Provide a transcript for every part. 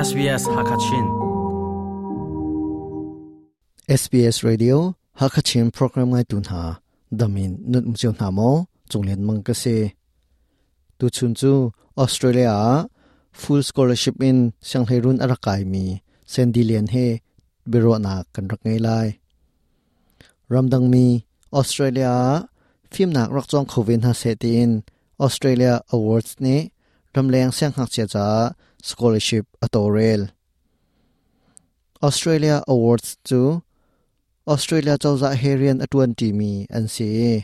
SBS Hakachin. SBS Radio Hakachin program ngai tu hna damin nun um cio hna maw chunglen mang ka si tu chun chu Australia ah full scholarship in sianghleirun a rak kaimi Sandy Lian he biaruahnak kan rak ngei lai. Ramdangmi Australia ah fimnak rak cawng kho ve hna seh tiin Australia Awards nih ramleng siangngakchia caah scholarship a tawlrel. Australia Awards cu Australia cozah he rian a ṭuanṭimi an si i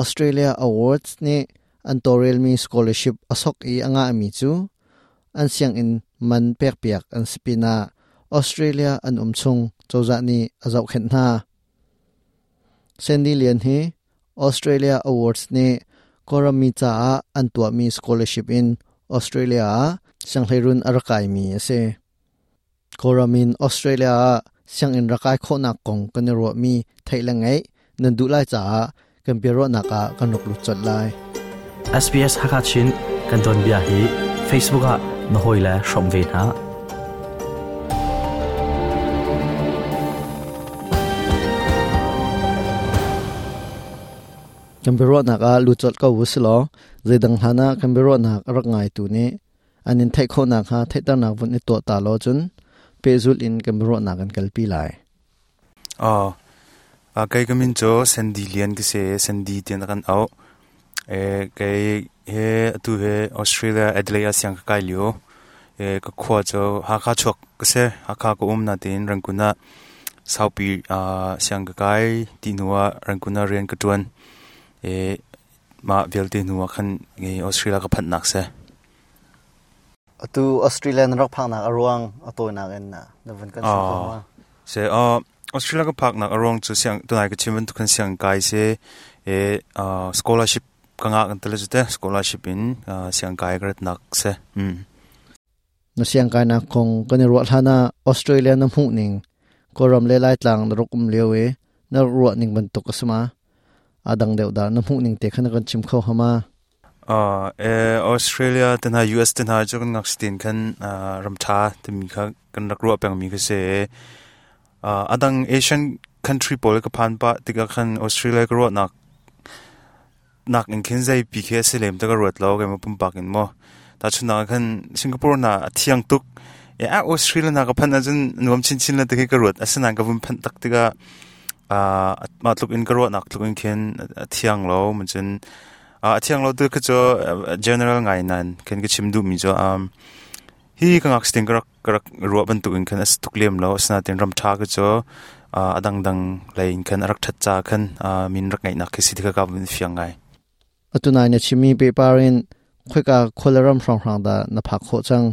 Australia Awards nih an tawlrelmi scholarship a sok i a ngahmi cu an sianginn man pekpiak an si pinah Australia an um chung cozah nih a zohkhenh hna. Sandy Lian hi Australia Awards nih Kawlram mi caah an tuahmi scholarship in Australia ah sianghleirun a rak kaimi a si. Kawlram in Australia ah sianginn rak kai khawhnak kong kan i ruahmi theih le ngaih nan duh lai caah kan biaruahnak ah kan rak lut colh lai. SBS Hakachin kan tuanbia hi Facebook ah na hawile hrawm ve hna. Kan biaruahnak ah lut colh ko u silaw zeidang hlan ah kan biaruahnak a rak ngaitu nih an in theih khawh nakhnga theihternak vun i tuah ta law cun pehzulh in kan biaruahnak kan kalpi lai. Aw, kei ka min cu Sandy Lian ka si i Sandy tiah kan auh. Kei he atu he Australia Adelaide ah siang ka kai lio. Ka khua cu Hakha chuak ka si. Hakha ka um nain Rangoon ah saupi siang ka kai ti hnu ah Rangoon ah rian ka ṭuan. Mah vialte hnu ah khan Australia ka phanhnak si. Atu Australia na rak phaknak a ruang a tawinak in na vun kan chim kho ma? Se Australia ka phaknak a ruang cu siang tunai ka chim bantuk khan siang kai si e scholarship ka ngah kan tele te scholarship in siang kai ka ratnak si. Na siang kainak kong kan i ruah hlan ah Australia na hmuh ning Kawlram le Laitlang na rak um lio i na ruah ning bantuk a si ma? A dang deuh dah na hmuh ning te kha na kan chim kho hama? Australia te hna US te hna cu kan ngakchia tein khan ram ṭha timi kha kan rak ruah pengmi kha si. A dang Asian country pawl ka phan pah tikah khan Australia ka ruahnak nak in khin zeipi khi a si lem ti ka ruat lo keimah pumpak in maw. Tahchunhnak ah khan Singapore hna a thiang tuk. Australia hna ka phanh ahcun nuam chinchin le ti khi ka ruat. Asinain ka vun phanh tak tikah mah tluk in ka ruahnak tluk in khin a thiang lo. Cun a thiang lo tu khi cu general ngai nain khin ka chim duhmi cu hi ka ngakchia ka rak ka rak ruah bantuk in khan a si tuk lem lo. Asinain ram ṭha khi cu a dangdang lei in khan a rak ṭhat ca khan min rak ngeihnak khi si ti kha ka vun fiang ngai. Atu nai na chimmi pehpar in khoika khualaram hrawnghrang dah na phak khawh cang?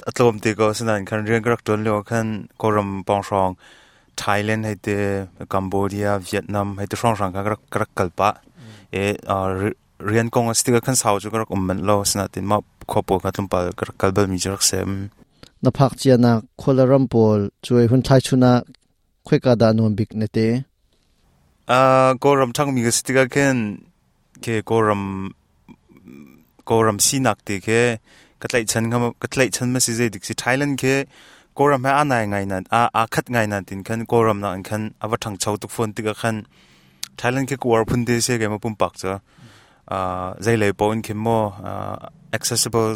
A tlawm te ko. Asinain khan rian ka rak ṭuan lio khan Kawlram pawng hrawng Thailand hei te, Cambodia, Vietnam hei te hrawnghrang kha ka rak kal pah. Rian kong a si tikah khan sau cu ka rak um manh lo. Asinain mah khua pawl kha tlawmpal ka rak kal balmi cu rak si. Na phak cianak khualaram pawl cuai hun thlai chun ah khoika dah nuam bik na te? Kawlram ṭhangmi ka si tikah khin khi Kawlram Kawlram sinak ti khi ka tlaihchan ka tlaihchan ma si zei dik si Thailand khi Kawlram he aa nai ngai nan aa khat ngai nan tin khan Kawlram nak in khan a va ṭhangcho tuk fawn tikah khan Thailand khi ka uar phun te si keimah pumpak cu zei lei paoh in khin maw accessible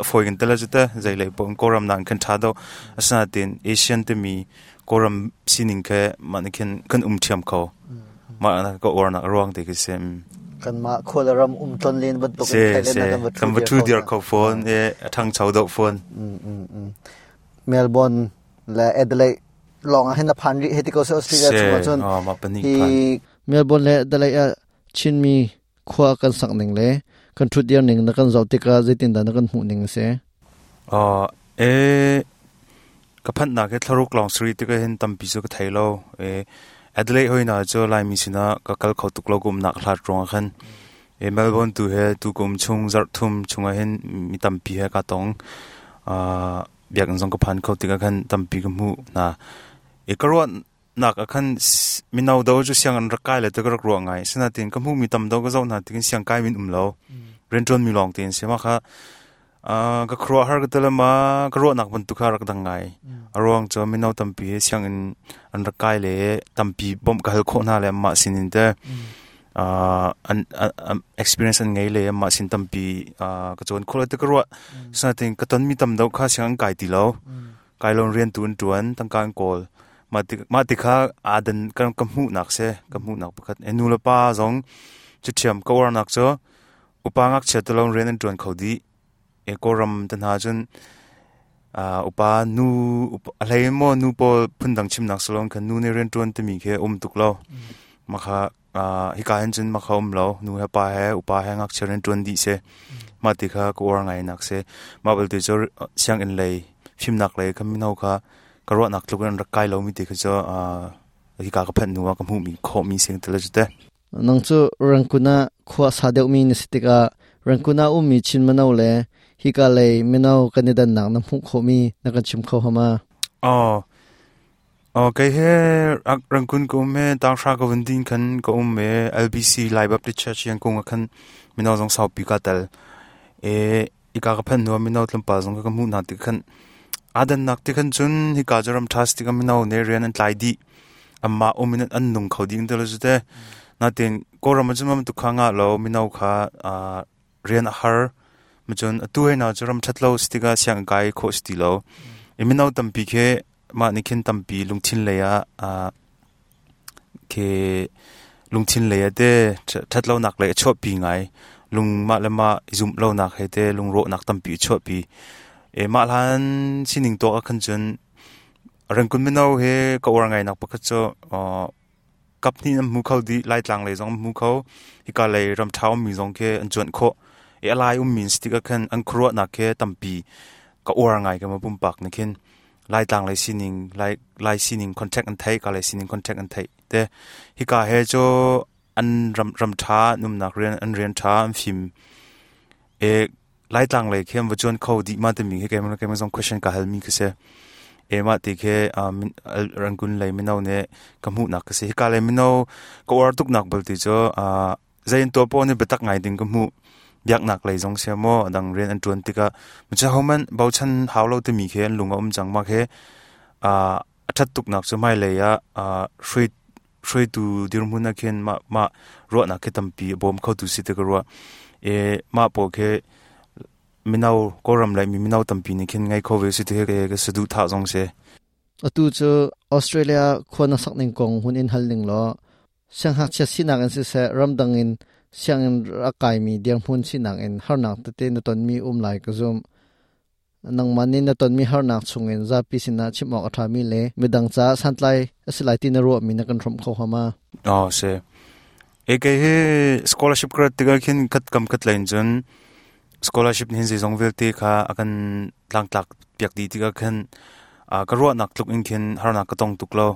fawi kan tel cu te zei lei paoh in Kawlram nak in khan ṭha deuh asinain Asian timi Kawlram sining khi mah nih khin kan um ṭhiam kho mah ka uarnak a ruang te khi si. Kanmah khual ram um tlon len bantuk in Thailand ah kan va kan va ṭhu dir kho fawn e a ṭhangcho deuh fawn. Melbourne le Adelaide lawng ah hin na phan rih hei ti ko seh Australia chung ah cun hi Melbourne le Adelaide ah Chinmi khua kan sak ning le kan ṭhut dir ning na kan zoh tikah zeitindah na kan hmuh ning a si? E ka phanhnak hi thlaruk lawng sari tikah hin tampi cu ka thei lo. E Adelaide hoi hna cu Laimi sinah ka kal kho tuk lo ka umnak hlat ruangah khan. E Melbourne tu he tu kum chung zarh thum chungah hin mi tampi he ka tong. Biakinn zong ka phan kho tikah khan tampi ka hmuh hna. E ka ruah nak ah khan mino do cu siang an rak kai le te ka rak ruah ngai. Sinain ka hmuhmi tam do ka zoh hna tikin siang kai min um lo. Rianṭuan mi lawng tein si. Mah kha Ka khuaruahhar ka ti le ma ka ruahnak bantuk kha rak dang ngai. A ruang cu mino tampi sianginn an rak kai le tampi bawmh ka hal khawh hna le anmah sinin te an experience an ngei le anmah sin tampi ka cawn khawh le ti ka ruah. Sinain ka tonmi tam deuh kha sianginn kai ti lo. Kai lo rian tu an ṭuan, tangka an kawl. Mah ti kha aa dan ka hmuhnak si, ka hmuhnak pakhat. Nu le pa zong cu ṭhiam ka uarnak cu Upa ngakchia te lawng rian an ṭuan kho dih. E Kawlram te hna cun upa nu a hlei maw nu pawl phundang chimnak si loin khan nu nih rian ṭuan timi khi um tuk lo. Mah kha hika hin cun mah kha um lo. Nu he pa he upa he ngakchia rian ṭuan dih si. Mah ti kha ka uar ngai nak si. Mah belte cu sianginn lei fimnak lei kha mino kha ka ruahnak tluk in an rak kai lomi ti kha cu hika ka phanh hnu ah ka hmuhmi khawhmi si ti le cu te. Nang cu Rangoon ah khua a sa deuhmi na si tikah Rangoon ah ummi Chin mino le hika lei mino kan i dannak na hmuh khawhmi na kan chim kho hama? Aw. Aw kei he Rangoon ka um he tanghra ka vun din khan ka um e LBC Lai Baptist Church Yangon ah khan mino zong saupi ka tel. E ika ka phanh hnu ah mino tlawmpal zong ka hmuh hna tik khan aa dannak ti khan cun hika cu ram ṭha si tikah mino nih rian an tlai dih. Anmah um in an nung kho dih ti lo cu te. Natin Kawlram ah cun bantuk kha ngah lo mino kha rian a har. Macun atu hei hna cu ram ṭhat lo si tikah sianginn kai khawh si ti lo. I mino tampi khi mah nih khin tampi lungthin lei ah khi lungthin lei ah te ṭhat lonak lei a chuahpi ngai. Lung mah le mah i zumh lonak he te lungrawhnak tampi a chuahpi. E mah hlan sining tuak ah khan cun Rangkun mino he ka uar ngainak pakhat cu kap hnih an hmu kho dih. Laitlang lei zong an hmu kho. Hika lei ramṭha ummi zong khi an cuanh khawh. I a lai ummi an si tikah khan an khuaruahnak khi tampi ka uar ngai ka ma pumpak nih khin. Laitlang lei sining, Lai, Lai sining contact an theih, ka lei sining contact an theih te. Hika he cu an ram, ram ṭha, an umnak rian, an rian ṭha, an fim. E, Laitlang lei khi an va cuan kho dih ma timi khi keimah keimah zong question ka halmi khi si. E mah ti khi Rangoon lei mino nih ka hmuhnak ka si. Hika lei mino ka uar tuknak bal ti cu zei an tuah poah nih biatak ngai ding ka hmuh. Biaknak lei zong sia maw adang rian an ṭuan tikah macha hohmanh bochan hau lo timi khi an lung a um cang ma khi a ṭhat tuknak cu hmailei ah hruai hruaitu dirhmun ah khin mah mah ruahnak khi tampi a bawm khotu si ti ka ruah. E mah pawl khi mino Kawlram lei mi mino tampi nih khin ngei kho ve si ti ka saduhthah zong si. Atu cu Australia khua na sak ning kong hun in hal ning law sianghngakchia sinak in siseh ramdang in sianginn a kaimi dirhmun sinak in harnak tete na tonmi um lai ka zumh. Nangmah nih na tonmi harnak chungin zapi sinah chim awk a ṭhami le midang caah santlai a si lai ti na ruahmi na kan hrawmh kho hnga ma? Oh, si. E kei hi scholarship ka rat tikah khin khat kam khat lein cun scholarship hin zeizong vialte kha a kan tlangtlak piak dih tikah khin ka ruahnak tluk in khin harnak ka tong tuk lo.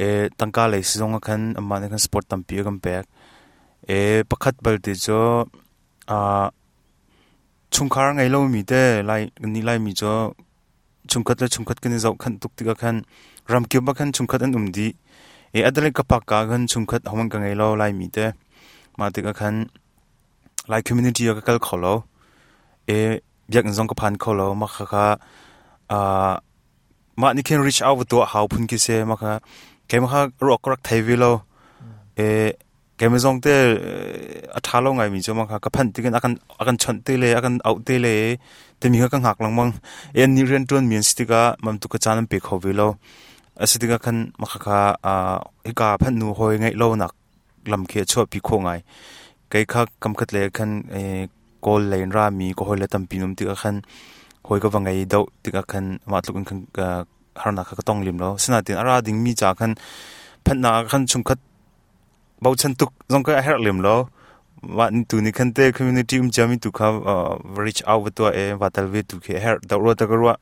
E tangka lei sizong ah khan amah nih khan support tampi a kan pek. E pakhat balte cu chungkhar ngei lomi te lai nih laimi cu chungkhat le chungkhat kan i zohkhanh tuk tikah khan ramkip ah khan chungkhat an um dih i adale ka pak ka khan chungkhat hohmanh ka ngei lo laimi te mah tikah khan lai community ah ka kal kho lo i biakinn zong ka phan kho lo mah khakha mah nih khin reach out va tuah hau phun khi si mah kha keimah kha ruak ka rak thei ve lo i keimah zong te a ṭha lo ngaimi cu mah kha ka phanh tikin a kan chawnh te le a kan auh te le timi kha ka hngak lengmang i annih rianṭuanmi an si tikah mam tu ka caan an pe kho ve lo a si tikah khan mah khakha hika phanh hnu hawi ngeih lonak lam khi a chuahpi khawh ngai kei kha kam khat le khan kawl lei in rami ka hawi le tampi um tikah khan hawi ka va ngei deuh tikah khan mah tluk in khan harnak kha ka tong lem lo sinain a ra dingmi ca khan phanhnak ah khan chungkhat bochan tuk zong ka a herh lem lo mah tu nih khan te community um ciami tu kha reach out va tuah e va tal ve tu khi a herh deuh rua ta ka ruah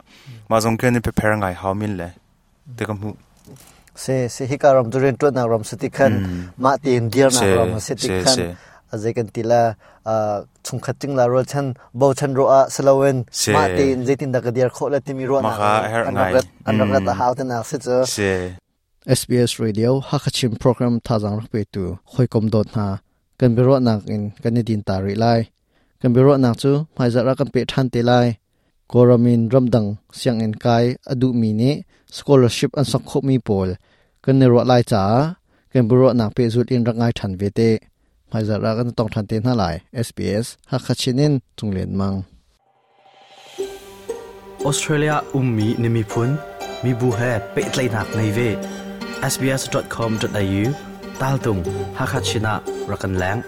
mah zong khin prepare ngai hau min le te ka hmuh se se hika ram cu rian ṭuannak ram si ti khan mah tein dirnak ram si ti khan azei kan ti la chungkhat ting la rualchan bochan ro ah siloin mah tein zeitin dah ka dir khawh le timi ruahnak an rak rat an rak rat a hau te nak si cu SBS Radio Hakachin program thazang rak petu hoikom dawt hna kan biaruahnak in kan i din ta rih lai. Kan biaruahnak cu hmaizarh ah kan peh ṭhan te lai. Kawlram in ramdang sianginn kai a duhmi nih scholarship an sok khawhmi pawl kan i ruah lai caah kan biaruahnak pehzulh in rak ngai ṭhan ve te. Hmaizarh ah kan tong ṭhan te hna lai. SBS Hakha Chin in Cung Lian Mang. Australia ummi na miphun mibu he pehtlaihnak ngei ve. sbs.com.au tal tung Hakha Chin ah rak kan leng.